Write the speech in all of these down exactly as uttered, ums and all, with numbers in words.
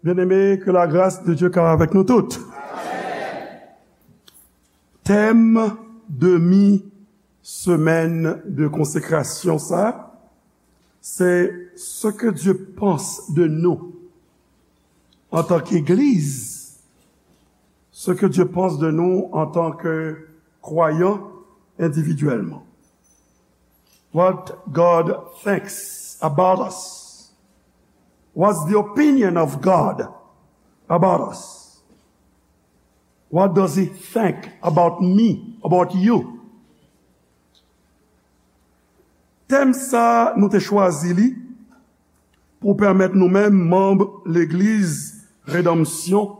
Bien-aimés, que la grâce de Dieu soit avec nous toutes. Tèm demi semèn de konsekrasyon sa, se ce que Dieu pense de nous en tant qu'Église, ce que Dieu pense de nous en tant que croyants individuellement. What God thinks about us. What's the opinion of God about us? What does he think about me, about you? Tèm sa, nou te chwazi li pou pèmèt nou menm, manm Legliz Redanmsyon,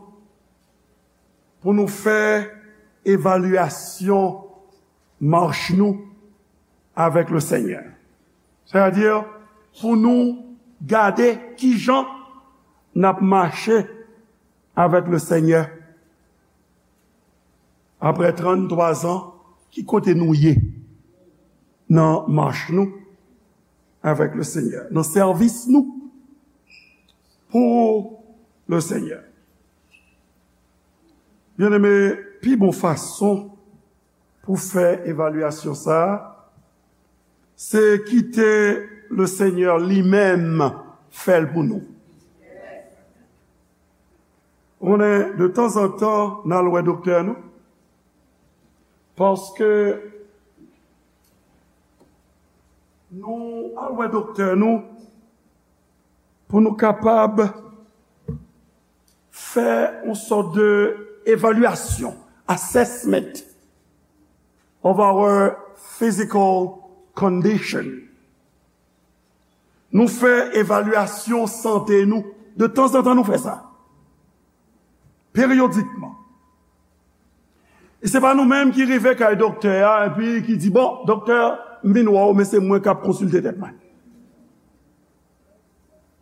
pou nou fè evalyasyon mach nou avèk le Senyè. Sètadi, pou nou gade kijan n ap mache avèk le Senyè. Apre tranntwa zan, ki kote nou ye nan mach nou avèk le Senyè, nan sèvis nou pou le Senyè? Bien-aimés, pi bon fason pou fè evalyasyon sa a, se kite le Senyè li menm fè l pou nou. Ou konnen, de tanzantan, n al wè doktè nou, paske nou al wè doktè nou pou nou kapab fè yon sòt de evalyasyon, assessment of our physical condition. Nou fè evalyasyon sante nou. De tanzantan, nou fè sa. Peryodikman. E se pa nou menm ki rive kay doktè a, epi ki di, "Bon, doktè, m vin wè w, men se mwen k ap konsilte tèt mwen."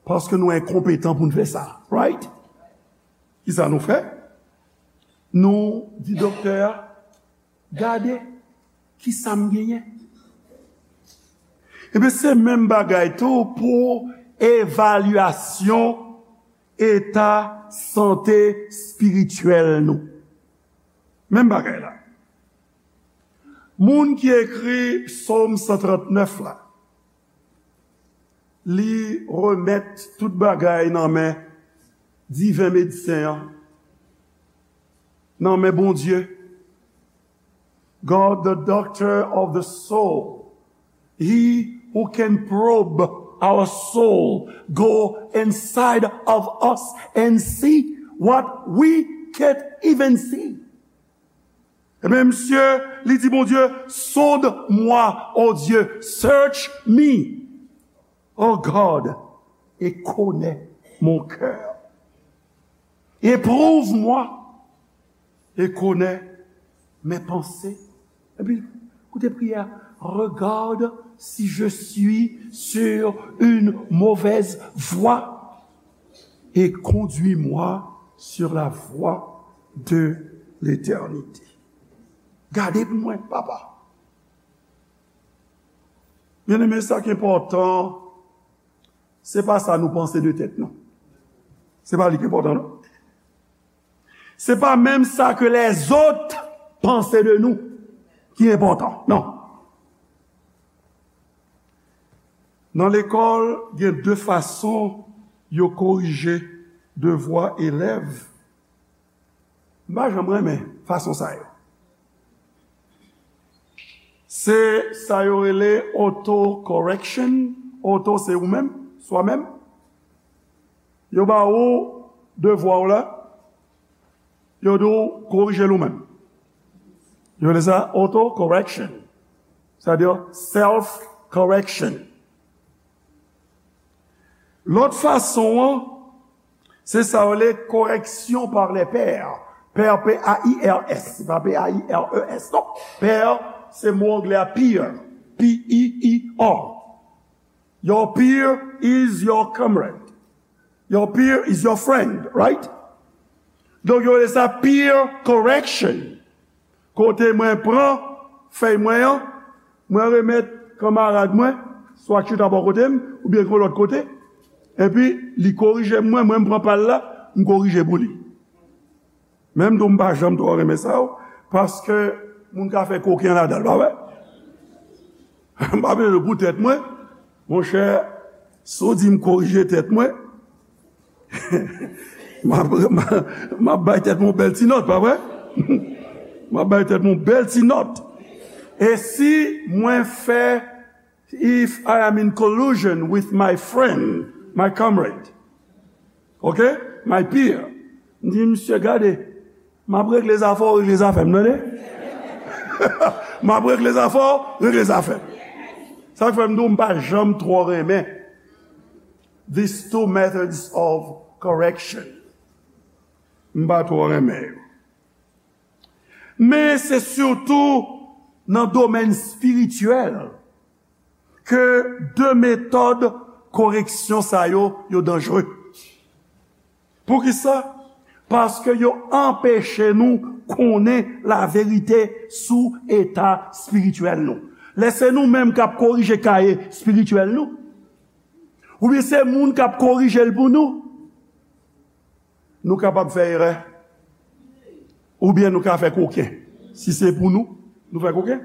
Paske nou enkonpetan pou n fè sa. Right? Kisa nou fè? Nou di doktè a, "Gade, kisa m genyen?" Ebyen, se menm bagay tou pou evalyasyon eta sante espirityèl nou. Menm bagay la. Moun ki ekri Sòm san trannèf la, li remèt tout bagay nan men diven medsen an, nan men Bondye. God, the doctor of the soul, he who can probe our soul, go inside of us and see what we can't even see. Ebyen, misye, li di Bondye, "Sonde-moi, ô Dieu, search me, ô God, et connais mon cœur. Éprouve-moi et connais mes pensées." Epi, koute priyè, "Regarde si je suis sur une mauvaise voie et conduis-moi sur la voie de l'éternité." Gade pou mwen, Papa. Bien-aimés, sa ki enpòtan, se pa sa nou panse de tèt nou. Se pa li ki enpòtan, non. Se pa menm sa ke lèzòt panse de nou ki enpòtan, non. Nan lekòl, gen de fason yo korije devwa elèv. M pa janm renmen fason sa yo. Se sa yo rele auto-correction. Auto, se ou menm, swa menm. Yo ba ou devwa w la, yo di w korije l ou menm. Yo rele sa auto-correction. Sètadi self-correction. Lòt fason an, se sa yo rele correction par les pairs. Pairs, P A I R S, se pa P A I R E S, non. Pairs, se mo anglè a peer, P E E R. Your peer is your comrade. Your peer is your friend, right? Donk, yo rele sa peer correction. Kote mwen pran fèy mwen an, mwen remèt kanmarad mwen, swa ki chita bò kote m, oubyen ki yon lòt kote, epi li korije m, mwen, mwen m pran pa l la, m korije pou li. Men m tou, m pa janm twò renmen sa, paske moun ka fè koken ladan l, pa vre? M pa bezwen pou tèt mwen. Monchè, si w di m korije tèt mwen, m ap, m ap, m ap bay tèt mwen yon bèl ti nòt, pa vre? M ap bay tèt mwen yon bèl ti nòt. E si mwen fè, if I am in collusion with my friend, my comrade, ok, my peer, m di, "Misye, gade, m ap regle zafè w, regle zafè m, tande? M ap regle zafè w, regle zafè m." Sa k fè m di w, m pa janm twò renmen these two methods of correction. M pa twò renmen yo. Men se sitou nan domèn espirityèl ke de metòd koreksyon sa yo, yo danjre. Poukisa? Paske yo anpeche nou konnen laverite sou eta espirityèl nou. Lè se nou menm k ap korije kaye espirityèl nou, oubyen se moun k ap korije l pou nou, nou kapab fè erè, oubyen nou ka fè koken. Si se pou nou, nou fè koken.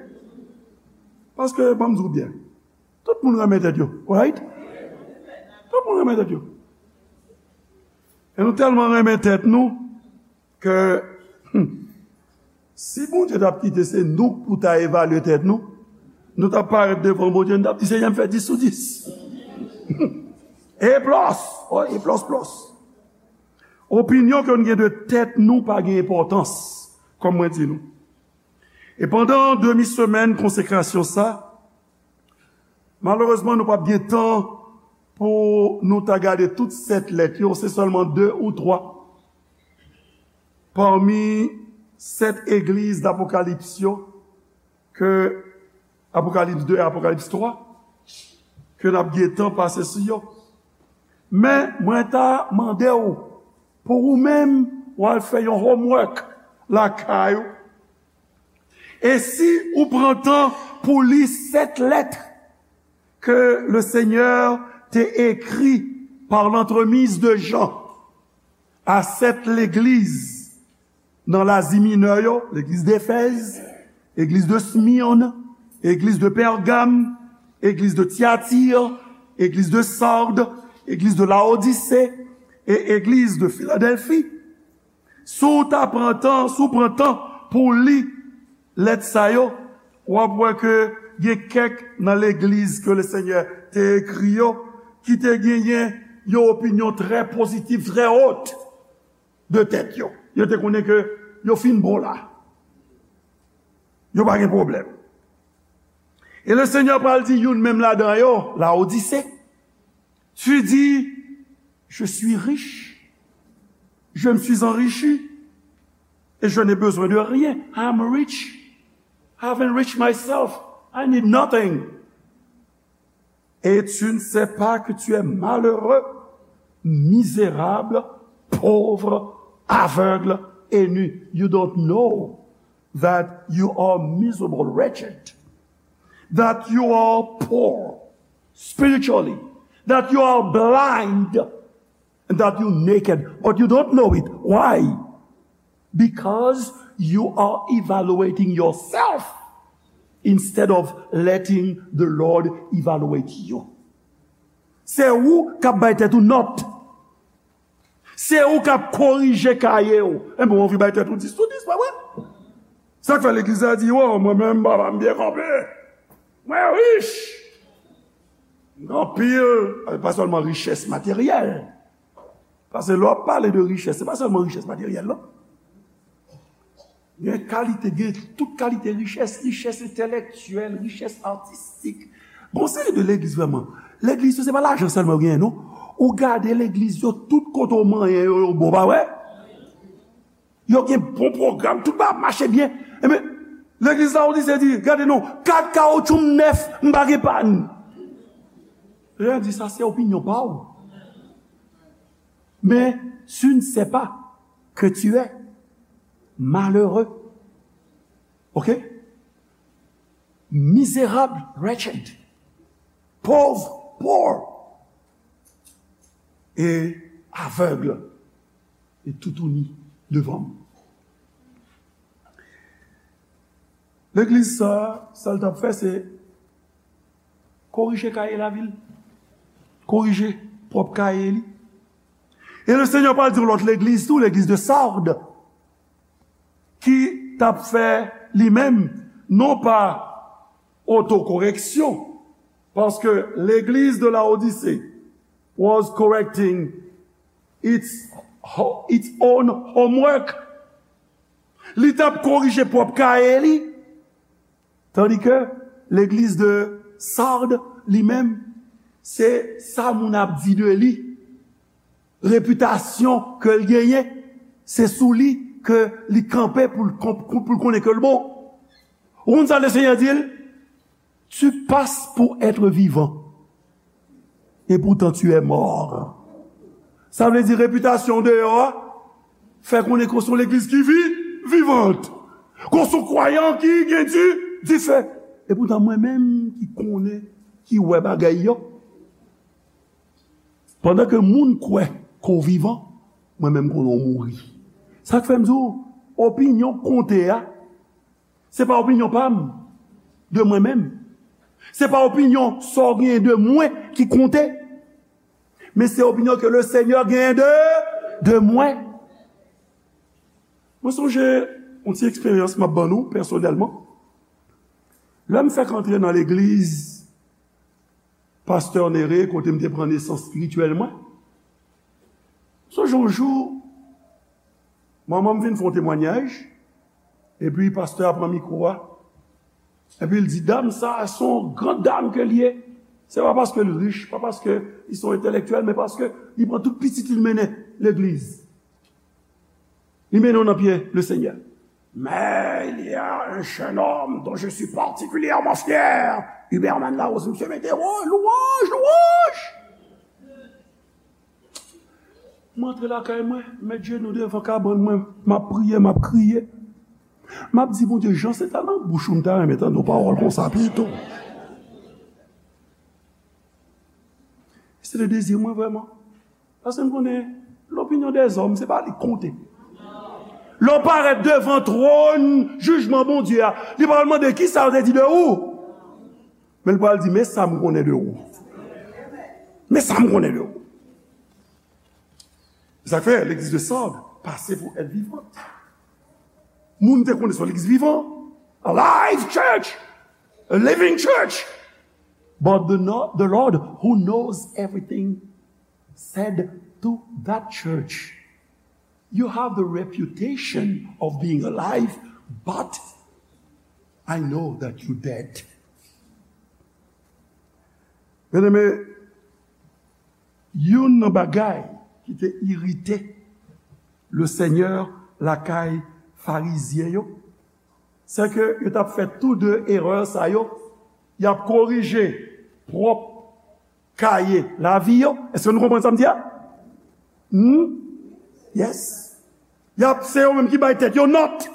Paske, ban m di w byen, tout moun renmen tèt yo, right? Tout moun renmen tèt yo. E nou tèlman renmen tèt nou ke, hmm, si Bondye t ap kite se nou pou ta evalye tèt nou, nou t ap parèt devan Bondye, nou t ap di, "Senyè, m fè dis sou dis." E plis, o, e plis, plis. Opinyon ke nou gen de tèt nou pa gen enpòtans, kòm mwen di nou. E pandan demi semèn konsekrasyon sa, malerezman, nou p ap gen tan pou nou ta gade tout sèt lèt yo, se sèlman de ou twa pami sèt egliz d Apokalips yo, ke Apokalips de e Apokalips twa, ke n ap gen tan pase sou yo. Men, mwen ta mande w, pou ou menm, w al fè yon homework lakay ou. E si ou pran tan pou li sèt lèt ke le Senyè te ekri par l'entremise de Jean a sèt legliz nan Lazi Minè yo, legliz Defèz, legliz de Smirn, legliz de Pègam, legliz de Tyatir, legliz de Sard, legliz de Laodise, e legliz de Filadèlfi. Si w ta pran tan, si w pran tan pou w li lèt sa yo, w ap wè ke gen kèk nan legliz ke le Senyè te ekri yo, ki te genyen yon opinyon trè pozitif, trè wot de tèt yo. Yo te konnen ke yo fin bon la. Yo pa gen pwoblèm. E le Senyè pral di youn menm ladan yo, Laodise, tu dis, "Je suis riche, je me suis enrichi, et je n'ai besoin de rien. I am rich, I have enriched myself, I need nothing." Et tu ne sais pas que tu es malheureux, misérable, pauvre, aveugle et nu. You don't know that you are miserable, wretched, that you are poor spiritually, that you are blind, and that you naked, but you don't know it. Why? Because you are evaluating yourself instead of letting the Lord evaluate you. Se ou k ap bay tèt ou nòt. Se ou k ap korije kaye w. Enben, w anvi bay tèt ou dis sou dis, pa vre? Sa k fè legliz la di, "O, mwen menm, papa m byen kanpe. Mwen rich." Gen anpil, pa sèlman richès materyèl. Paske lè w ap pale de richès, se pa sèlman richès materyèl, non. Gen kalite, gen tout kalite richès, richès entèlektyèl, richès atistik. Gon seri de legliz vrèman. Legliz yo, se pa lajan sèlman yo genyen, non. Ou gade legliz yo, tout kote w manyen yo, yo bon, pa vre? Yo gen bon pwogram, tout bagay ap mache byen. Enben, legliz Laodise di, "Gade non, kat kawotchou m nèf, m pa gen pàn." Senyè di, "Sa se opinyon pa w. Mais tu ne sais pas que tu es malheureux." Ok? Misérable, wretched. Pauvre, poor. Et aveugle. Toutouni devan m. Legliz sa, sa l t ap fè, se korije kaye lavi l, korije pwòp kaye li. E le Senyè pral di yon lòt legliz tou, legliz de Sarde, ki t ap fè li menm, non pa otokoreksyon, paske legliz de Laodise was correcting its, its own homework. Li t ap korije pwòp kaye li. Tandike legliz de Sarde, li menm, se sa moun ap di de li. Repitasyon ke l genyen, se sou li ke li kanpe pou l konp-, pou l konnen ke l bon. Ou konn sa le Senyè di l? Tu passes pour être vivant, et pourtant tu es mort. Sa vle di repitasyon deyò a fè konnen ke w se yon legliz ki vi, vivant. Ke w se yon kwayan ki gen di, dife. E poutan mwen menm ki konnen, ki wè bagay yo. Pandan ke moun kwè ke w vivan, mwen menm konnen w mouri. Sa k fè m di w, opinyon konte a, se pa opinyon pa m, de mwen menm. Se pa opinyon sa w genyen de mwen ki konte. Men se opinyon ke le Senyè genyen de, de mwen. Mwen sonje yon ti eksperyans m ap ban nou pèsonèlman. Lè m fèk antre nan legliz pastè Nere, kote m te pran nesans espirityèl mwen, sonje yon jou, manman m vin fè yon temwayaj, epi pastè a pran mikwo a, epi l di, dam sa a, se yon gran dam ke l ye. Se pa paske l rich, pa paske li se yon entèlektyèl, men paske li pran tout pitit li, l mennen legliz. Li mennen w nan pye le Senyè. Mais il y a un jeune homme dont je suis particulièrement fier. Huberman Larose, misye mete, oh, louanj, louanj! Mwen antre lakay mwen, met jenou devan kabann mwen, m ap priye, m ap kriye. M ap di, Bondye, jan se ta nan bouch ou, m ta renmen tande yon pawòl konsa pito. Se te dezi mwen vrèman. Paske m konnen, lopinyon dèzòm, se pa li k konte. Lè w parèt devan twòn jijman Bondye a, li pral mande, kisa yo te di de ou? Men l pral di, men sa m konnen de ou. Men sa m konnen de ou. Se sa k fè legliz de Sarde pase pou èt vivan. Moun te konnen se yon legliz vivan. A live church. A living church. But the, no-, the Lord who knows everything said to that church, you have the reputation of being alive, but I know that you dead. Byeneme, youn nan bagay ki te irite le Senyè lakay Farizyen yo, se ke yo t ap fè tou de erè sa yo, y ap korije pwòp kaye lavi yo. Èske nou konprann sa m di a? Hmm? Yes. Y ap, se yo menm ki bay tèt yo nòt.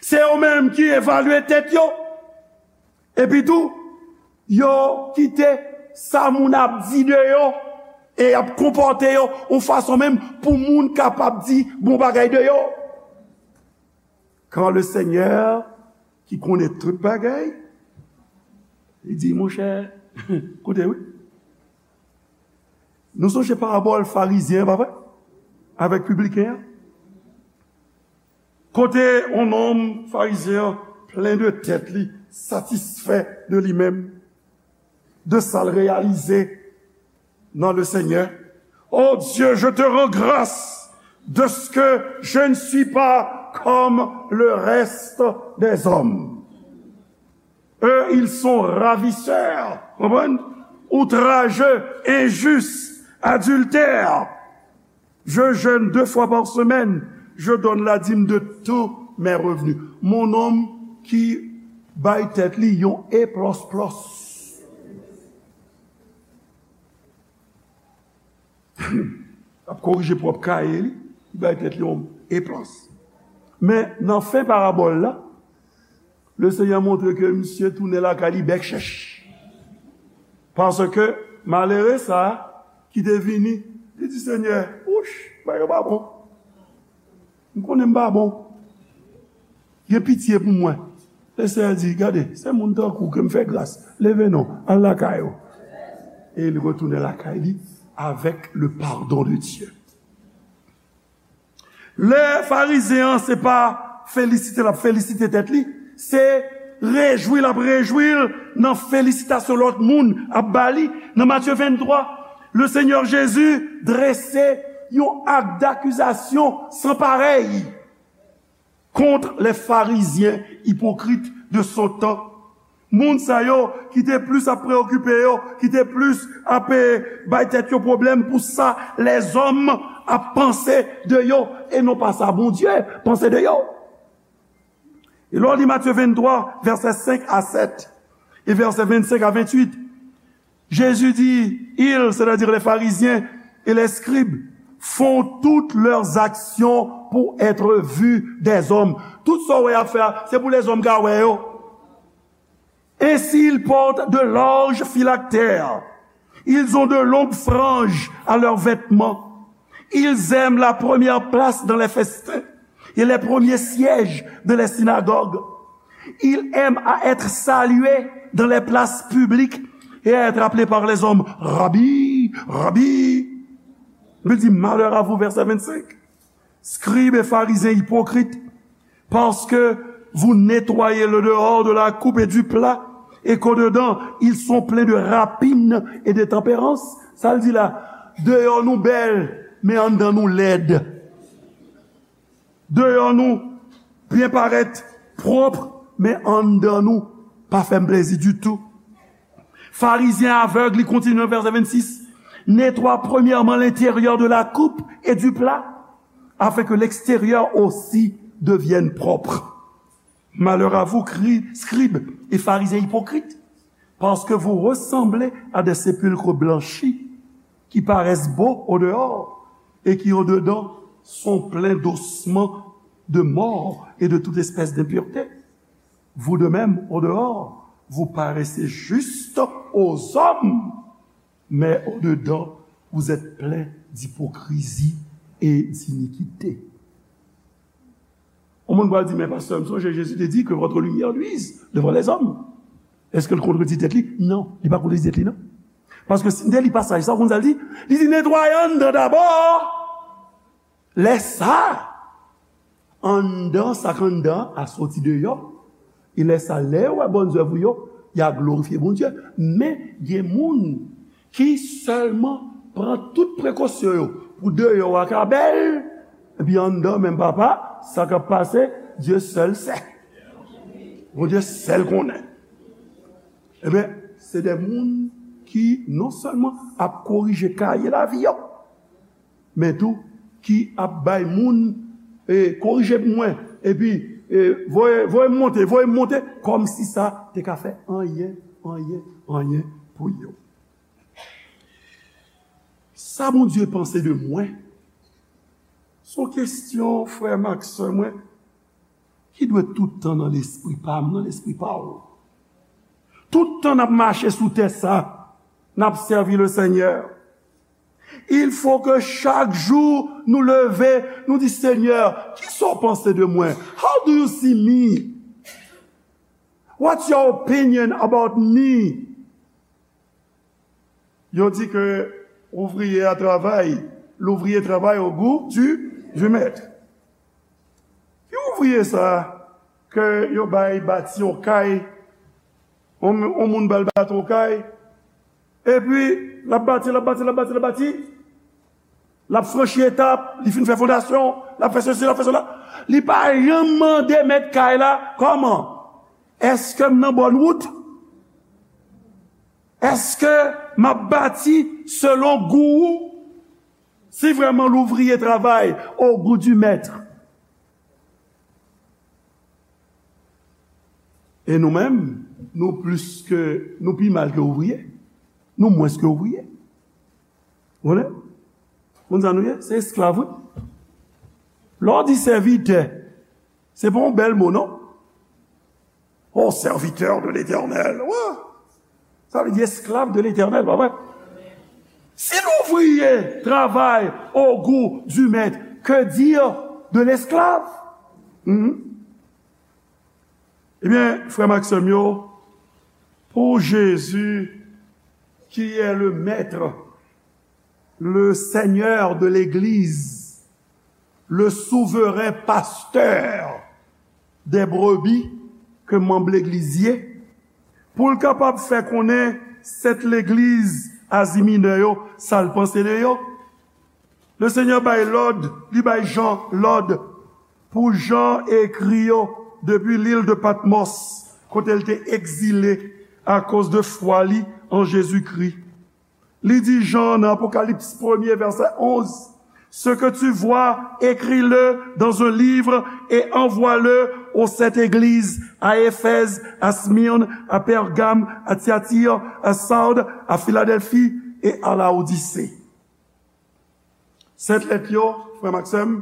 Se yo menm ki evalye tèt yo. Epi tou, yo kite sa moun ap di de yo e y ap konpòte yo yon fason menm pou moun kapab di bon bagay de yo. Quand le Seigneur, ki konnen tout bagay, li di, monchè, koute wi. Nou sonje parabòl Farizyen an, pa vre? Avèk pibliken an. Kote yon nonm Farizyen an plen de tèt li, satisfè de li menm, de sa l reyalize dans le Seigneur. Oh Dieu, je te rends grâce de ce que je ne suis pas comme le reste des hommes. Eux, ils sont ravisseurs, konprann? Outrageux, injustes, adultères. Je jeûne deux fois par semaine, je donne la dîme de tous mes revenus. Mon nonm ki bay tèt li yon eplòsplòs. Ap korije pwòp kaye li, li bay tèt li yon eplòs. Men nan fen parabòl la, le Senyè montre ke misye tounen lakay li bèk chèch. Paske malere sa a ki te vini, li di, Senyè, wouch, Bagay yo pa bon. M konnen m pa bon. Gen pitye pou mwen. Lesenyè di, gade, se moun tankou ke m fè gras. Leve non, al lakay ou. E li retounen lakay li avec le pardon de Dieu. Lè Farizyen an, se pa felisite l ap felisite tèt li, se rejwi l ap rejwi l nan felisitasyon lòt moun ap ba li. Nan Matye venntwa, le Senyè Jezi drese yon ak dakizasyon san parèy kont les Pharisiens hypocrites de son temps. Moun sa yo ki te plis ap preokipe yo, ki te plis ap, eh, bay tèt yo pwoblèm pou sa lèzòm ap panse de yo, e non pa sa Bondye panse de yo. E lè w li Matye venntwa, vèsè senk a sèt, e vèsè vennsenk a venntuit, Jésus dit, ils, c'est-à-dire les pharisiens et les scribes, font toutes leurs actions pour être vus des hommes. Tout sa w wè y ap fè a, se pou lèzòm ka wè yo. Ainsi, ils portent de larges phylactères. Ils ont de longues franges à leurs vêtements. Ils aiment la première place dans les festins et les premiers sièges de les synagogues. Ils aiment à être salués dans les places publiques et à être appelés par les hommes, Rabbi, Rabbi. Bib di, malheur à vous, vèsè vennsenk. Scribes et pharisiens hypocrites, parce que vous nettoyez le dehors de la coupe et du plat, et qu'au-dedans, ils sont pleins de rapines et d'intempérances. Sa l di la, deyò nou bèl, men anndan nou lèd. Deyò nou byen parèt, pwòp, men anndan nou pa fè m plezi ditou. Pharisien aveugle, li kontinye nan vèsè vennsis, nettoie premièrement l'intérieur de la coupe et du plat, afin que l'extérieur aussi devienne propre. Malheur à vous, cri- scribes et pharisiens hypocrites, parce que vous ressemblez à des sépulcres blanchis, qui paraissent beaux au dehors et qui au dedans sont pleins d'ossements de morts et de toute espèce d'impureté. Vous de même, au dehors, vous paraissez juste aux hommes, mais au dedans, vous êtes pleins d'hypocrisie et d'iniquité. Yon moun pral di, men pastè, m sonje Jezi te di que votre lumière luise devant les hommes. Èske l kontredi tèt li? Non, li pa kontredi tèt li, non. Paske si n te li pasaj sa, w konn sa l di? Li di, netwaye anndan dabò. Lè sa, anndan, sa k anndan an soti deyò. E lè sa, lè yo wè bòn zèv ou yo, y a glorifye Bondye. Men, gen moun ki sèlman pran tout prekosyon yo pou deyò a ka bèl, epi anndan menm papa, sa k ap pase, Dye sèl sè. Bondye sèl konnen. Ebyen, se de moun ki non sèlman ap korije kaye lavi yo, men tou ki ap bay moun, e, korije pou mwen, epi, e, voye, voye m monte, voye m monte, kòmsi sa te ka fè anyen, anyen, anyen pou yo. Sa Bondye panse de mwen, se yon kesyon, frè m ak sè mwen, ki dwe tout tan nan lespri pa m, nan lespri pa w. Tout tan n ap mache sou tè sa, n ap sèvi Lesenyè. Il faut que chak jou nou leve, nou di, Senyè, kisa w panse de mwen? How do you see me? What's your opinion about me? Yo di ke ouvriye a travay, l'ouvrier travaille au goût du, du maître. Ki ouvriye sa ke yo bay bati yon kay, yon, yon moun ba l bati yon kay, epi l ap bati, l ap bati, l ap bati, l ap bati, l ap franchi etap, li fin fè fondasyon, l ap fè sesi, l ap fè sela. Li pa janm mande mèt kay la, kòman? Èske m nan bòn wout? Èske m ap bati selon gou ou? Si vraiment l'ouvrier travaille au goût du maître, e nou menm, nou plis ke, nou pi mal ke ouvriye. Nou mwens ke ouvriye. Ou konnen? Konn sa nou ye? Se esklav, wi. Lè w di sèvitè, se pa yon bèl mo, non? Oh, serviteur de l'Éternel. Wa! Sa vle di esklav de Letènèl, pa vre? Si l'ouvrier travaille au goût du maître, que dire de l'esclave? Mhm. Ebyen, frè m ak sè m yo, pour Jésus, qui est le maître, le Seigneur de l'Église, le souverain pasteur des brebis, ke manm legliz ye, pou l kapab fè konnen sèt legliz Azi Minè yo sa l panse de yo. Le Senyè bay lòd, li bay Jan lòd pou Jan ekri yo depi lil de Patmòs, kote l te egzile akoz de fwa li an Jezikri. Li di Jan nan Apokalips premye, vèsè onz, Ce que tu vois, écris-le dans un livre et envoie-le aux sept églises, à Éphèse, à Smyrne, à Pergame, à Thyatire, à Sardes, à Philadelphie et à Laodicée. Sèt lèt yo, frè m ak sè m,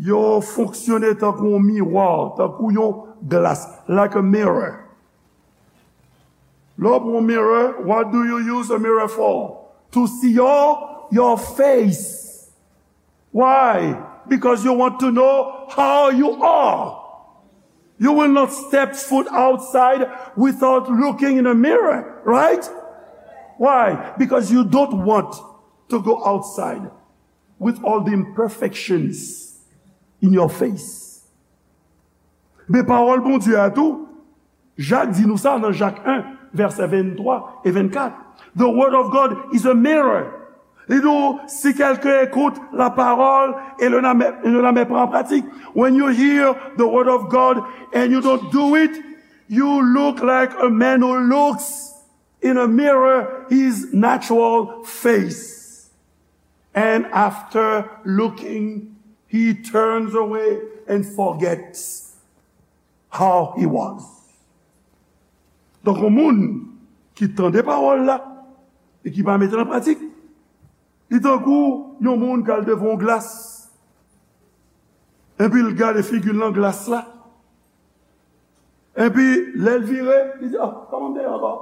yo fonksyone tankou yon miwa, tankou yon glas, like a mirror. Lè w pran yon mirror, what do you use a mirror for? To see your, your face. Why? Because you want to know how you are. You will not step foot outside without looking in a mirror, right? Why? Because you don't want to go outside with all the imperfections in your face. Men pawòl Bondye a tou, Jak di nou sa nan Jak en, vèsè venntwa e vennkat. The word of God is a mirror. Li di w, si quelqu'un écoute la parole et ne la met, ne la met pas en pratique, when you hear the word of God and you don't do it, you look like a man who looks in a mirror his natural face. And after looking, he turns away and forgets how he was. Donk, yon moun ki tande pawòl la e ki pa mete l an pratik, li tankou yon moun k al devan yon glas, epi l gade figi l nan glas la, epi lè l vire, li di, "Ah, kòman m te ye ankò?"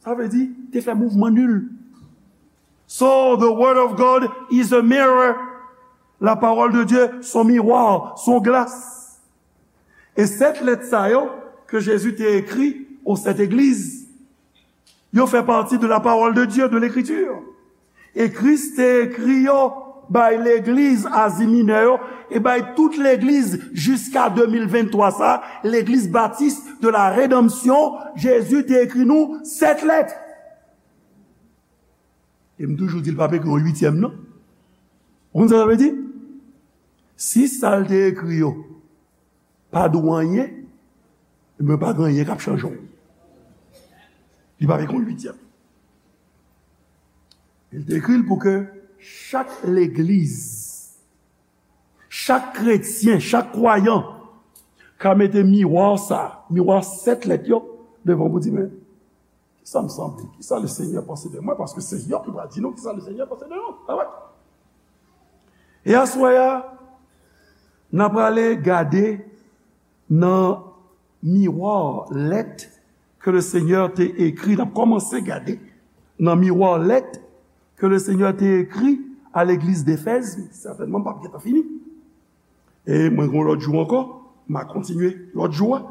Sa vle di, te fè mouvman nil. So, the word of God is a mirror. La parole de Dieu, son miwa, son glas. E sèt lèt sa yo ke Jezi te ekri aux sept églises, yo fè pati de la parole de Dieu, de l'écriture. E Kris te ekri yo bay legliz Azi Minè yo, e bay tout legliz jiska de mil venntwa sa, legliz Batis de la Redanmsyon, Jezi te ekri nou sèt lèt. E m toujou di l p ap ekri yon uityèm, non. Ou konn sa sa vle di? Si sa l te ekri yo pa di w anyen, ebyen, pa gen anyen k ap chanje w. Li p ap ekri yon uityèm. Li te ekri l pou ke chak legliz, chak kretyen, chak kwayan ka mete miwa sa, miwa sèt lèt yo, devan pou di, men, kisa m sanble? Kisa le Senyè panse de mwen? Paske se yo ki pral di nou kisa le Senyè panse de nou. Pa vre? E aswè a, n a prale gade nan miwa lèt ke le Senyè te ekri. N ap kòmanse gade nan miwa lèt ke le Senyè te ekri a legliz Defèz. Sètènman, m p ap gentan fini. E mwen gen yon lòt jou ankò, m a kontinye lòt jou a.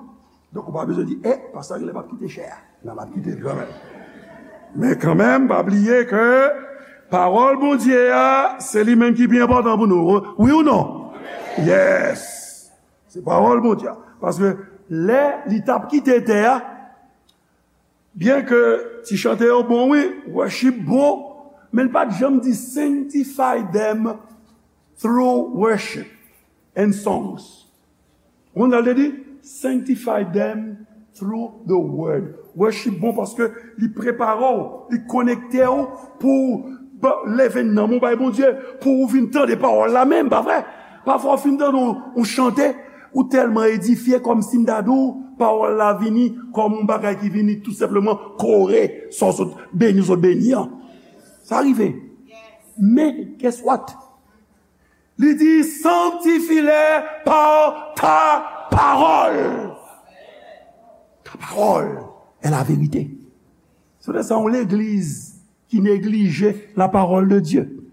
Donk, ou pa bezwen di, "E, pastè a genlè p ap kite chè a." Non, m ap kite l kanmenm. Men kanmenm, pa bliye ke pawòl Bondye a, se li menm ki pi enpòtan pou nou. Wi ou non? Yes! Se pawòl Bondye a. Paske lè li t ap kite tè a, byen ke ti chante yo bon, wi, worship bon, men l pa t janm di, "Sanctify them through worship and songs." Ou konn sa l te di? "Sanctify them through the word." Worship bon paske li prepare w, li konekte w pou w ba- leve nanm ou bay Bondye, pou w vin tande pawòl la menm, pa vre? Pafwa w fin tande yon, yon chante, ou tèlman edifye, kòmsi m ta di w, pawòl la vini kòm yon bagay ki vini tou senpleman kore sa w sot beni, w sot beni an. Sa rive. Men, guess what? Li di, "Sanctifie-les par ta parole." Ta parole est la vérité. Se pou sa yon legliz qui néglige la parole de Dieu.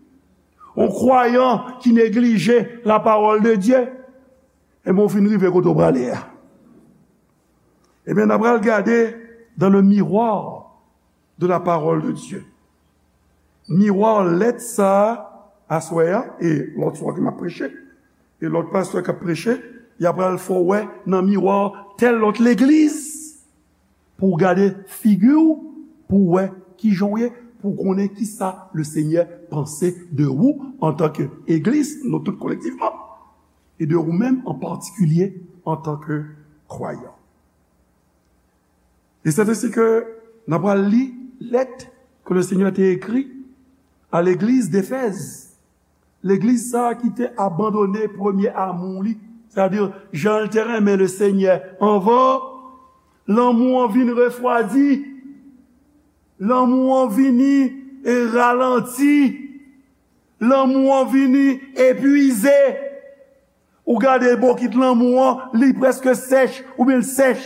Un croyant qui néglige la parole de Dieu. Ebyen, w fin rive kote w prale a. Ebyen, n a pral gade dans le miroir de la parole de Dieu. Miwa lèt sa a, aswè a, e lòt swa ke m ap preche, e lòt pastè k ap preche, y ap pral fè w wè nan miwa tèl lòt legliz, pou w gade figi w, pou w wè kijan w ye, pou w konnen kisa le Senyè panse de ou antanke egliz, nou tout kolektivman, e de ou menm an patikilye antanke kwayan. E se ensi ke n ap pral li lèt ke le Senyè te ekri a legliz Defèz. Legliz sa a ki te abandone premye amou li, sètadi jan l te renmen le Senyè anvan, lanmou an vin refwadi, lanmou an vini e ralanti, lanmou an vini epwize. Ou gade bokit lanmou an, li prèske sèch, oubyen l sèch.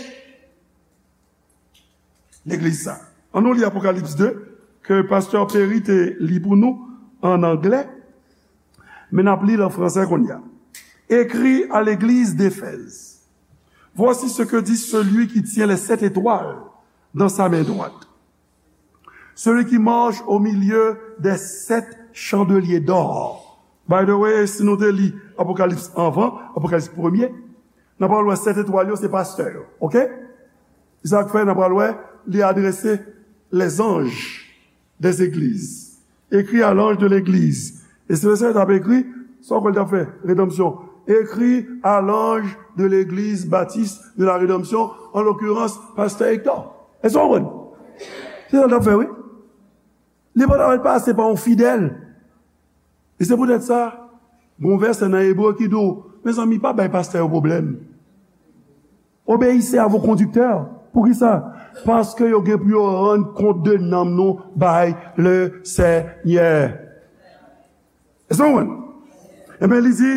Legliz sa. Ann nou li Apokalips de, ke pastè Perry te li pou nou an anglè, men n ap li l an fransè kounye a. Écrit à l'église d'Éphèse. Voici ce que dit celui qui tient les sept étoiles dans sa main droite. Celui qui marche au milieu des sept chandeliers d'or. By the way, si nou te li Apokalips anvan, Apokalips premye, n ap pral wè sèt etwal yo se pastè yo, oke? Se sa k fè n ap pral wè li adrese les anges des églises. Écrit à l'ange de l'église. E si le Senyè t ap ekri, sa w kwè l t ap fè? Redanmsyon. Écrit à l'ange de l'église baptiste de la rédemption, en l'occurrence, pastè Hector. Èske w konprann? Se sa l t ap fè, wi. Li pa t ap pase pa yon fidèl. E se poutèt sa, gon vèsè nan Ebre ki di w, mezanmi, pa bay pastè yo pwoblèm. Obéissez à vos conducteurs. Poukisa? Paske yo gen pou yo rann kont de nanm nou bay le Senyè. Èske w konprann? Ebyen, li di,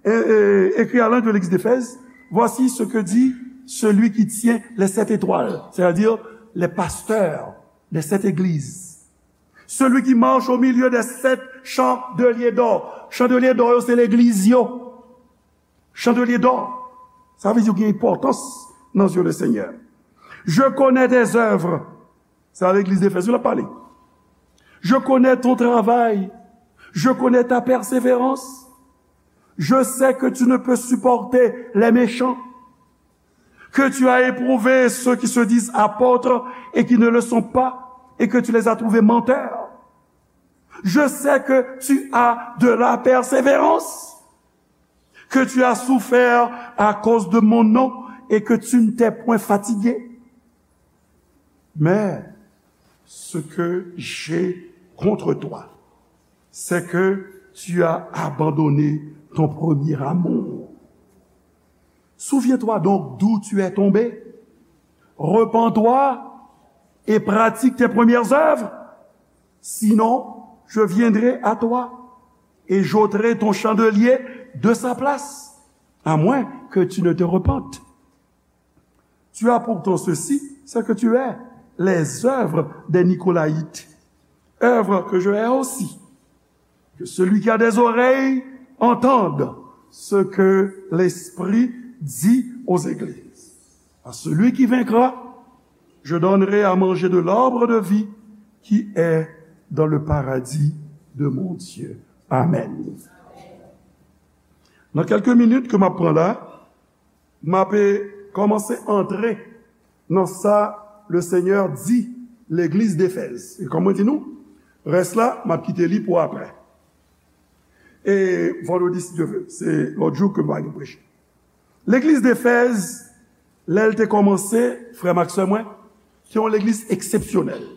e, e, écrit à l'ange de l'église d'Éphèse, voici ce que dit celui qui tient les sept étoiles, c'est-à-dire les pasteurs des sept églises. Celui qui marche au milieu des sept chandeliers d'or. Chandeliers d'or yo, se legliz yo. Chandeliers d'or. Sa vle di yo gen enpòtans nan zye le Senyè. Je connais tes œuvres. Se a legliz Efèz yo l ap pale. Je connais ton travail. Je connais ta persévérance. Je sais que tu ne peux supporter les méchants, que tu as éprouvé ceux qui se disent apôtres et qui ne le sont pas, et que tu les as trouvés menteurs. Je sais que tu as de la persévérance, que tu as souffert à cause de mon nom et que tu ne t'es point fatigué. Mais ce que j'ai contre toi, c'est que tu as abandonné ton premier amour. Souviens-toi donc d'où tu es tombé. Repens-toi et pratique tes premières œuvres. Sinon, je viendrai à toi et j'ôterai ton chandelier de sa place, à moins que tu ne te repentes. Tu as pourtant ceci, c'est que tu es les œuvres des Nicolaïtes, œuvres que je hais aussi. Que celui qui a des oreilles entende ce que l'Esprit dit aux églises. À celui qui vaincra, je donnerai à manger de l'arbre de vie qui est dans le paradis de mon Dieu. Amen. Nan kèlke minit ke m ap pran la, m ape kòmanse antre nan sa le Senyè di legliz Defèz. E kòm mwen di nou, rès la, m ap kite li pou apre. E vandredi, si Dye vle, se lòt jou ke m va gen preche. Legliz Defèz, lè l te kòmanse, frè m ak sè mwen, te yon legliz eksepsyonèl.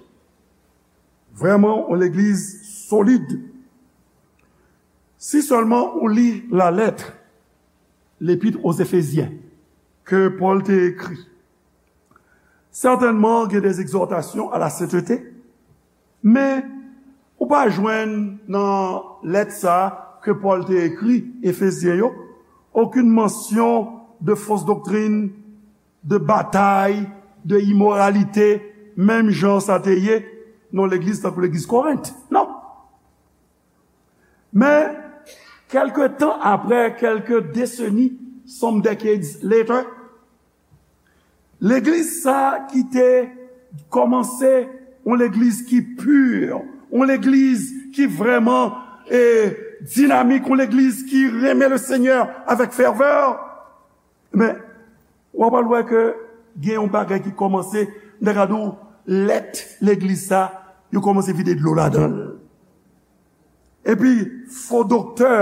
Vrèman, yon legliz solid. Si sèlman ou li la lettre, l'épître aux Éphésiens, ke Pòl te ekri, sètènman, gen des exhortations à la sainteté, men ou pa jwenn nan lèt sa a ke Pòl te ekri Efezyen yo, okenn mansyon de fausse doctrine, de batay, de imoralite, menm jan sa te ye nan legliz tankou legliz Korent. Non. Men, kèlke tan apre, kèlke deseni, some decades later, legliz sa ki te kòmanse yon legliz ki pi, yon legliz ki vrèman e dinamik, yon legliz ki renmen le Senyè avèk fèvè. Men, w ap al wè ke gen yon bagay ki kòmanse, m ta ka di w, lèt legliz sa, yo kòmanse vide dlo ladan l. Epi, fo doktè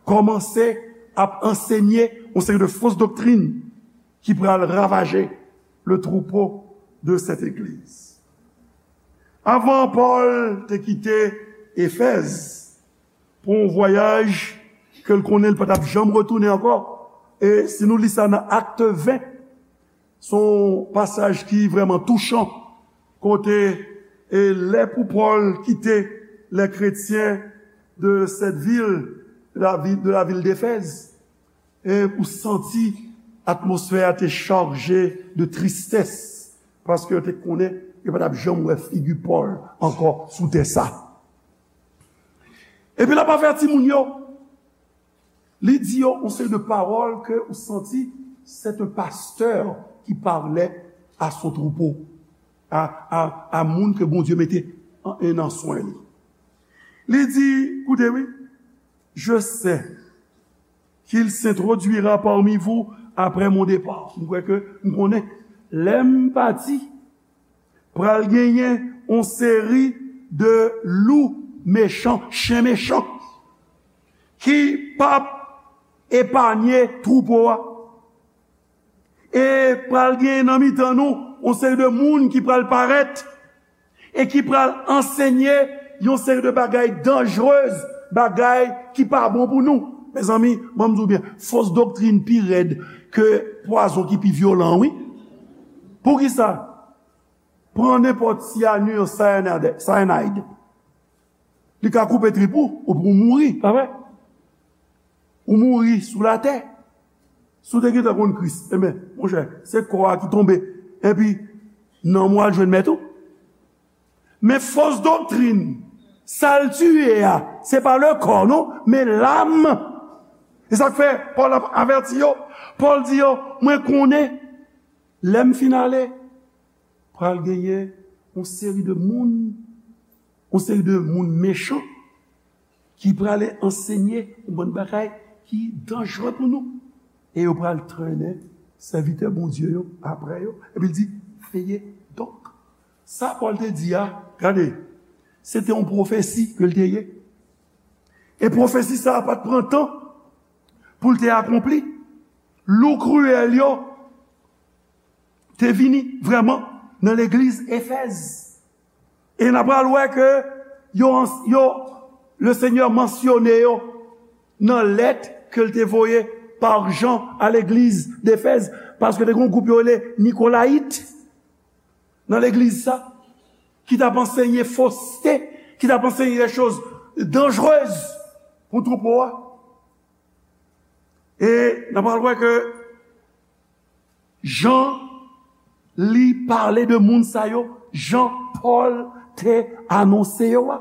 kòmanse ap ansenye yon seri de fos doktrin ki pral ravaje le troupeau de cette église. Avan Pòl te kite Efèz pou yon vwayaj ke l konnen l pa t ap janm retounen ankò. E si nou li sa nan Akt ven, se yon pasaj ki vrèman touchan, kote e lè pou Pòl kite les chrétiens de cette ville, de la ville, de la ville d'Éphèse, e ou santi atmosfè a te chaje de tristès, paske yo te konnen yo pa t ap janm wè figi Pòl ankò sou tè sa. Epi l ap avèti moun yo, li di yo yon seri de pawòl ke ou santi c'est un pasteur qui parlait à son troupeau, a, a, a moun ke Bondye mete an, nan swen li. Li di, koute wi, je sais qu'il s'introduira parmi vous après mon départ. M kwè ke m konnen, lè m pati, pral genyen yon seri de lou mechan, chen mechan, ki p ap epanye twoupo a. E pral genyen nan mitan nou yon seri de moun ki pral parèt e ki pral ansenye yon seri de bagay danjrez, bagay ki pa bon pou nou. Mezanmi, ban m di w byen, fos doktrin pi rèd ke pwazon ki pi vyolan, wi. Poukisa? Pran nenpòt syanir, cyanide, cyanide. Li ka koupe trip ou, ou pou mouri, pa vre? Ou mouri sou latè. Si w te gentan konn Kris, enben, monchè, se kò a ki tonbe. Epi, nanm ou al jwenn mèt ou. Men fos doktrin, sa l tiye a, se pa le kò, non, men lam. E sa k fè Pòl ap avèti yo. Pòl di yo, mwen konnen, lè m fin ale, pral genyen yon seri de moun, yon seri de moun mechan ki prale ansenye yon bann bagay ki danjre pou nou. E yo pral trennen sèvitè Bondye yo apre yo. Epi l di, veye donk. Sa Pòl te di a, gade, se te yon pwofesi ke l te ye. E pwofesi sa a pa t pran tan pou l te akonpli. Lou kriyèl yo te vini vrèman nan legliz Efèz. E n a pral wè ke yo, yo, le Senyè mansyone yo nan lèt ke l te voye pa Jan a legliz d'Efèz, paske te gen yon gwoup yo rele Nikolayit nan legliz sa, ki t ap ansenye foste, ki t ap ansenye de choz danjrez pou twoupo a. E n a pral wè ke jan li pale de moun sa yo, jan Pòl te anonse yo a.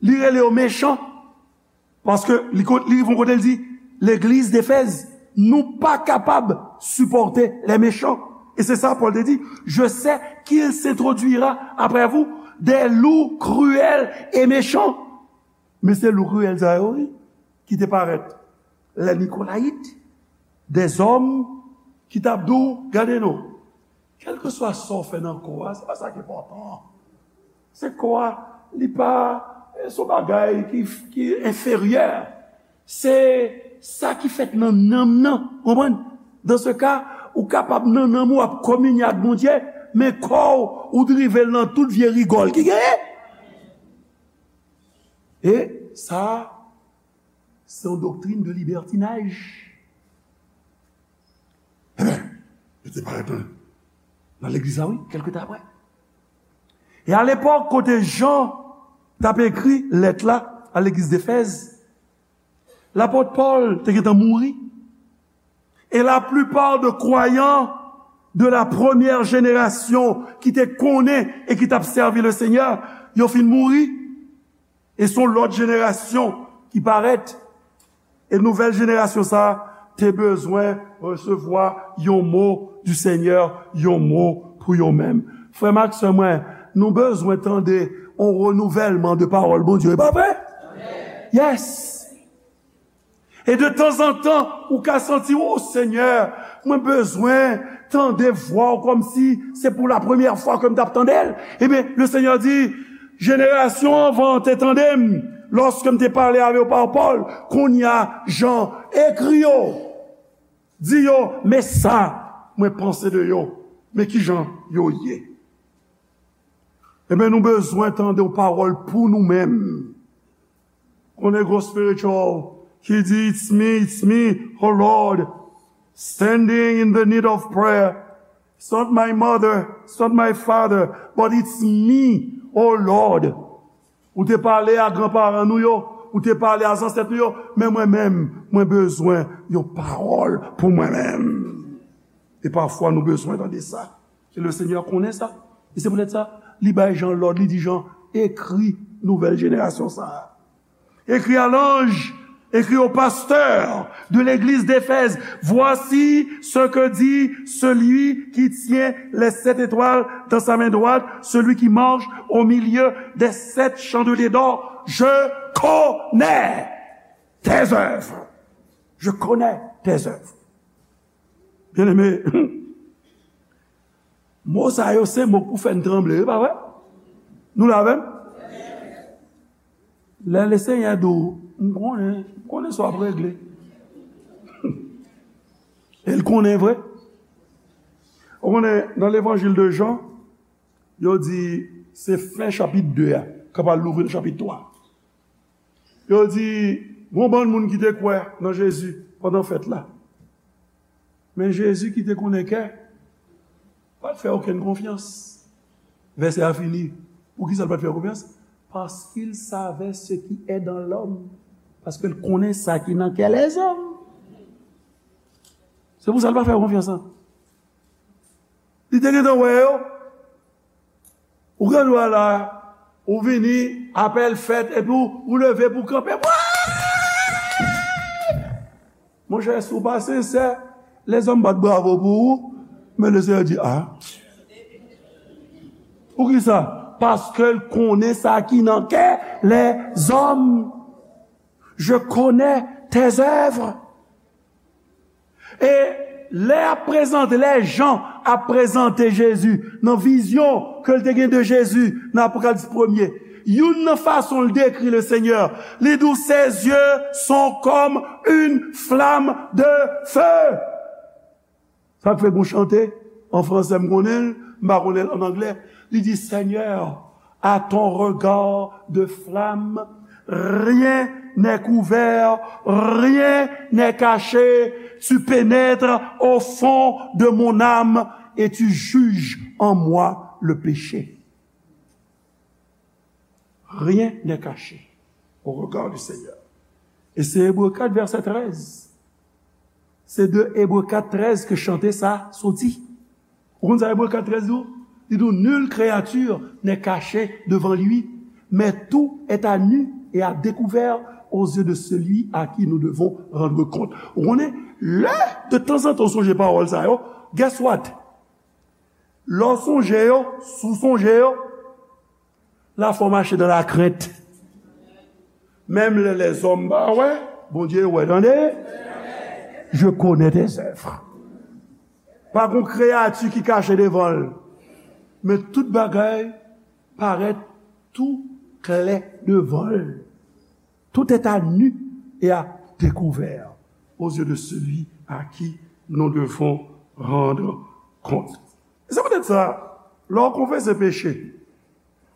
Li rele yo mechan, paske li, li rive yon kote, li di, legliz d'Efèz, nou pa kapab sipòte les méchants. E se sa Pòl te di, je sais qu'il s'introduira après vous des loups cruels et méchants. Men se lou kriyèl sa yo, wi, ki te parèt. Les Nicolaïtes, des hommes ki t ap di w, gade non, kèlkeswa sa w fè nan kò a, se pa sa ki enpòtan. Se kò a, li pa, se yon bagay ki, ki enferyè. Se sa ki fèt nan nanm nan, konprann? Dans ce cas, ou kapab nan nanm ou ap kominye ak Bondye, men kò w, ou drive l nan tout vye rigòl ki genyen. E sa, se yon doktrin de libètinaj. Enben, yo te parèt nan, nan legliz la, wi, kèlke tan apre. E alepòk, kote Jan t ap ekri lèt la a legliz d'Efèz, lapot Pòl te gentan mouri. Et la plupart de croyants de la première génération ki te konnen e ki t ap sèvi le Seigneur, yo fin mouri. E se yon lòt jenerasyon ki parèt. E nouvèl jenerasyon sa a te bezwen resevwa yon mo du Seigneur, yon mo pou yo menm. Frè m ak sè mwen, nou bezwen tande yon renouvèlman de pawòl Bondye, e pa vre? Yes! E de tanzantan, ou ka santi, "O Senyè, mwen bezwen tande vwa w kòmsi se pou la premyè fwa ke m t ap tande l." Ebyen, le Senyè di, "Jenerasyon anvan an te tande m lòske m te pale avè yo pa pawòl. Kounye a, Jan, ekri yo. Di yo, men sa mwen panse de yo, men ki jan yo ye." Ebyen, nou bezwen tande yon pawòl pou nou menm. Konnen gwo spiritual ki di, "It's me, it's me, oh Lord, standing in the need of prayer. It's not my mother, it's not my father, but it's me, oh Lord." Ou te pale a granparan nou yo, ou te pale a zansèt nou yo, men mwen menm, mwen bezwen yon pawòl pou mwen menm. E pafwa nou bezwen tande sa. E le Senyè konnen sa. E se poutèt sa, li bay Jan lòd, li di Jan, "Ekri nouvèl jenerasyon sa a. Ekri à l'ange, écris au pasteur de l'église d'Éphèse, voici ce que dit celui qui tient les sept étoiles dans sa main droite, celui qui marche au milieu des sept chandeliers d'or. Je connais tes œuvres. Je connais tes œuvres." Byeneme, mo sa yo se mo k pou fè n tranble, wi, pa vre? Nou la avè m? Lè Lesenyè di w, "M konnen, m konnen sa w ap regle." E l konnen vre. Ou konnen, nan levanjil de Jan, yo di se fen chapit de a, k ap al louvri nan chapit twa. Yo di, gon bann moun ki te kwè nan Jezi pandan fèt la. Men Jezi ki te konnen kè, pa t fè okenn konfyans. Vèsè a fini. Poukisa l pa t fè konfyans? Parce qu'il savait ce qui est dans l'homme. Paske l konnen sa ki nan kè lèzòm. Se pou sa l pa fè konfyans lan. Li te gentan wè yo. Ou gen dwa la, ou vini, apèl fèt, epi w, ou leve pou w kanpe. Monchè, si w pa sensè, lèzòm bat bravo pou ou, men Lesenyè di, "A." Poukisa? Paske l konnen sa ki nan kè lèzòm. Je connais tes œuvres. E lè y ap prezante, lè Jan ap prezante Jezi nan vizyon ke l te gen de Jezi nan Apokalips premye, youn nan fason l dekri Lesenyè, li di w, "Ses yeux sont comme une flamme de feu." Sa k fè gon chante an fransè, m konnen l, m pa konnen l an anglè. Li di, "Seigneur, à ton regard de flamme, rien n'est couvert, rien n'est caché. Tu pénètres au fond de mon âme et tu juges en moi le péché." Rien n'est caché au regard du Seigneur. E se Ebre kat vèsè trèz. Se de Ebre kat trèz ke chante sa soti. Ou konn sa Ebre kat trèz di w? Li di w, "Nulle créature n'est cachée devant lui, mais tout est à nu et à découvert aux yeux de celui à qui nous devons rendre compte." Ou konnen, lè de tanzantan w sonje pawòl sa yo, guess what? Lè w sonje yo, si w sonje yo, lafwa w mache nan lakrent. Menm lè lèzòm pa wè, Bondye wè, tande. Je connais tes œuvres. Pa gon kreyati ki kache devan l. Men tout bagay parèt tou klè devan l. Tout est à nu et à découvert aux yeux de celui à qui nous devons rendre compte. Se poutèt sa, lè w konfese peche,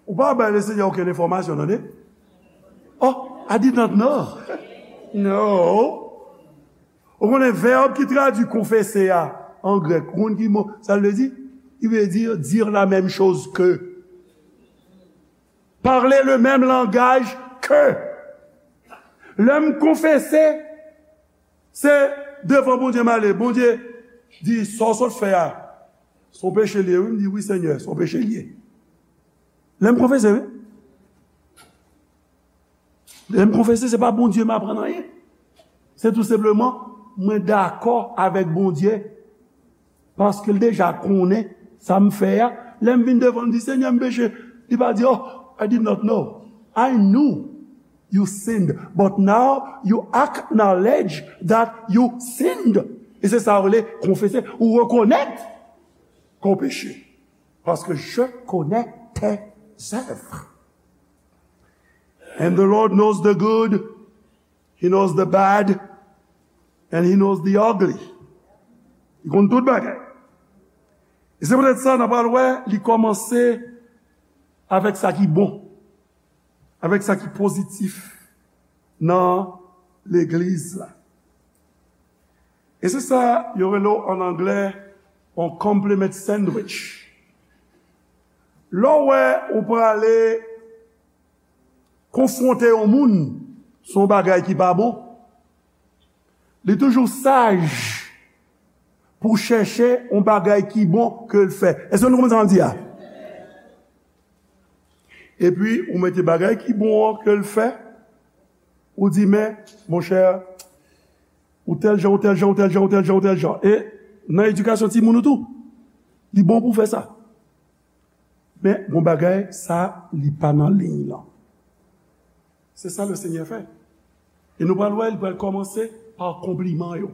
ou pa bay Lesenyè okenn enfòmasyon, tande. Oh, I did not know. No. Ou konnen vèb ki tradui konfese a an grèk, ou konn ki mo sa l vle di? Li vle di dire la même chose que. Parler le même langage que. Lè m konfese, se devan Bondye m ale. Bondye di, "Sa w sot fè a, Se yon peche l ye, wi. M di, wi, Senyè, se yon peche l ye. Lè m konfese, wi. Lè m konfese, se pa Bondye m aprann anyen. Se tou senpleman, mwen dakò avèk Bondye. Paske l deja konnen sa m fè a. Lè m vin devan l, m di, Senyè, m peche. Li pa di, Oh, I did not know. I knew you sinned, but now you acknowledge that you sinned. E se sa yo rele konfese. Ou rekonèt ke w peche. Paske je connais tes œuvres. And the Lord knows the good, He knows the bad, and He knows the ugly. Li konn tout bagay. E se poutèt sa, n ap pral wè, li kòmanse avèk sa ki bon, avèk sa ki pozitif nan legliz la. E se sa yo rele w an anglè yon compliment sandwich. Lè w wè ou prale konfwonte yon moun sou yon bagay ki pa bon, li toujou saj pou chèche yon bagay ki bon ke l fè. Èske nou konprann sa m ap di a? Epi, ou mete bagay ki bon an ke l fè, ou di, Men, monchè, ou tèl jan, ou tèl jan, ou tèl jan, ou tèl jan, ou tèl jan. E nan edikasyon timoun ou tou, li bon pou w fè sa. Men, gon bagay, sa, li pa nan liy lan. Se sa Lesenyè fè. E nou pral wè, li pral kòmanse pa konpliman yo.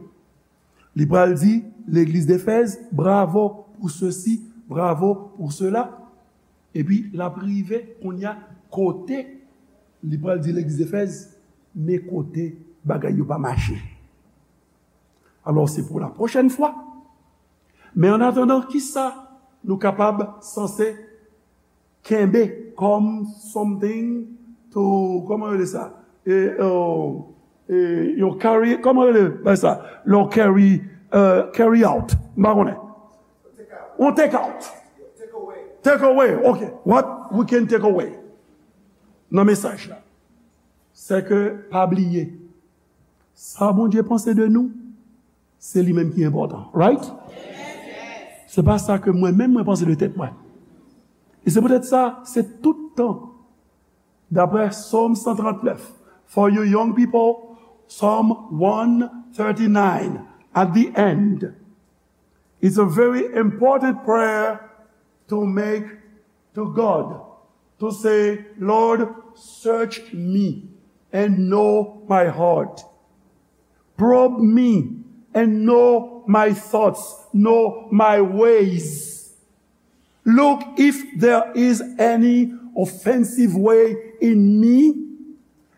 Li pral di legliz Efèz, bravo pou sesi, bravo pou sela. Epi, l ap rive kounye a kote li pral di legliz Efèz, men kote bagay yo pa mache. Alò, se pou la pwochèn fwa. Men an atandan, kisa nou kapab sanse kenbe kòm something to, kòman yo rele sa? E, e, e, yon carry, kòman yo rele bagay sa? Yon carry, e, carry out. M pa konnen. Yon take out. Take away. Ok. What we can take away nan mesaj la? Se ke pa bliye, sa Bondye panse de nou, se li menm ki enpòtan. Right? Se pa sa ke mwen menm mwen panse de tèt mwen. E se poutèt sa, se tout tan, daprè Sòm san trannèf, for you young people, Psalm one thirty-nine, at the end, it's a very important prayer to make to God, to say, Lord, search me and know my heart. Probe me and know my thoughts, know my ways. Look if there is any offensive way in me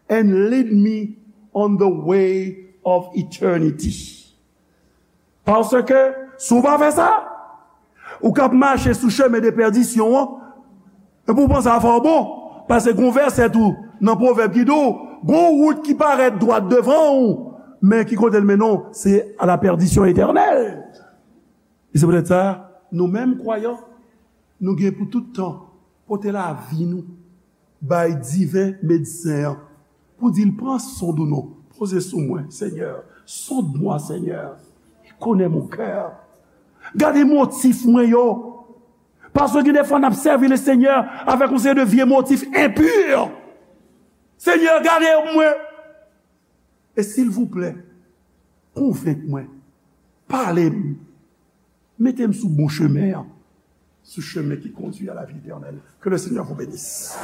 and lead me on the way of eternity. Paske, si w pa fè sa, ou k ap mache sou chemen de pèdisyon an, epi w panse afè w bon, paske gon vèsè tou nan Pwovèb ki di w, gon wout ki parèt dwat devan w, men ki kote l mennen w, se a la pèdisyon etènèl. E se poutèt sa, nou menm kwayan, nou gen pou tout tan pote lavi nou bay diven medsen an, pou di l, Pran sonn ou non, poze sou mwen, Senyè, sonde-moi, Senyè, et connais mon cœur. Gade motif mwen yo. Paske gen de fwa n ap sèvi Lesenyè avèk yon seri de vye motif enpi. Senyè, gade mwen. E silvouplè, konvenk mwen, pale m, mete m sou bon chemen an, sou chemen ki kondui a la vi etènèl. Que le Seigneur vous bénisse.